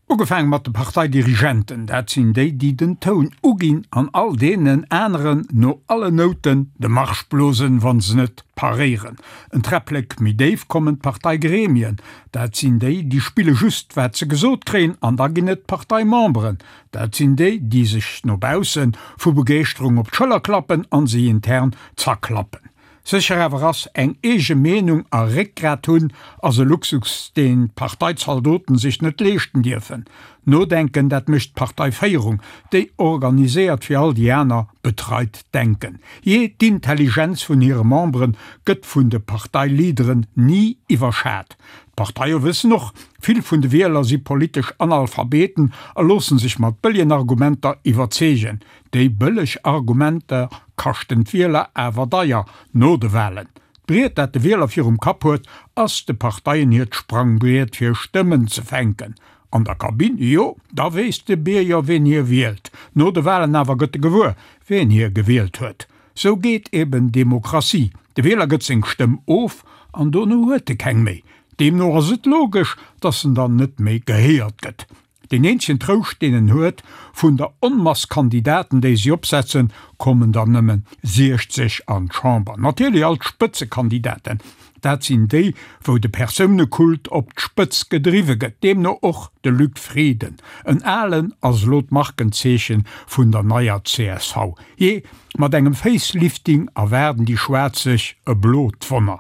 Ugefaange mat de Parteidirigenten, dat sinn déi, déi den Toun uginn an all deenen aneren no allen Nouten de Marsch blosen, wa se net paréieren. En Träpplek méi déif kommen d'Parteigremien, dat sinn déi, déi spille just wat se gesot kréien an da ginn et d'Parteimemberen, dat sinn déi, déi sech no bausse vu Begeeschterung op d'Schëller klappen an se intern zerklappen. Sécher awer ass, eng eege Meenung a Réckgrat hunn ass e Luxus, deen d'Parteizaldoten sech net leeschten dierfen. Nodenken, dat mécht d'Parteiféierung, déi organiséiert fir all déi aner betreit d'Denken. Jee, d'Intelligenz vun hire Membere gëtt vun de Parteileaderen ni iwwerschat. D'Parteie wëssen och, vill vun de Wieler si politesch Analphabeten a loossen sech mat bëllegen Argumenter iwwerzeegen. Déi bëlleg Argumenter kaschten d'Wieler awer deier no de Walen. D'Briet, dat de Wieler virum Kapp huet, ass de Parteien hiert Sprangbriet fir Stëmmen ze fänken. An der Kabinn, jo, da weess de Bierger ween hie wielt. No de Walen awer gëtt e gewuer, ween hie gewielt huet. Sou geet eben Demokratie, de Wieler gëtt seng Stëmm of an dono huet e keng méi. Deemno ass et logesch, datt en dann net méi gehéiert gëtt. Deen eenzegen Trouscht deen en huet, vun der Onmass Kandidaten déi si opsetzen, kommen der nëmmen 60 an d'Chamber. Natierlech all d'Spëtzekandidaten, dat sinn déi wou de Persounekult op d'Spëtz gedriwwe gëtt, deemno och de Luc Frieden. En alen ass elo d'Markenzeechen vun der neier csv. Jee, mat engem Facelifting erwaarden déi Schwaarz sech e blot Wonner.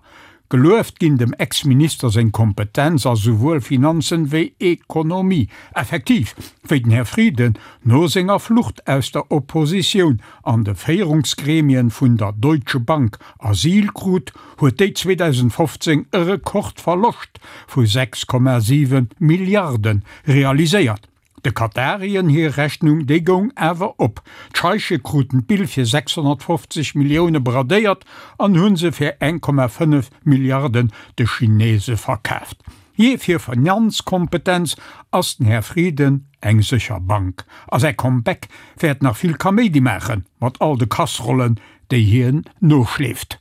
Gelueft ginn dem Ex-Minister seng Kompetenz a souwuel Finanzen wéi Ekonomie. Effektiv, wéi den Här Frieden no senger Flucht aus der Oppositioun an de Féierungsgremien vun der Deutsche Bank Asyl krut, huet déi 2015 e Rekordverloscht vu 6,7 Milliarde realiséiert. De Katarien hir Rechnung, déi goung awer op. D'Scheiche kruten d'Bill fir 650 Millioune bradéiert an hu se fir 1,5 Milliarden de Chinese verkaaft. Jee, fir Finanzkompetenz ass den Här Frieden eng sécher Bank. A säi Comeback wäert nach vill Kaméidi maachen, mat all de Kasserollen, déi hien noschleeft.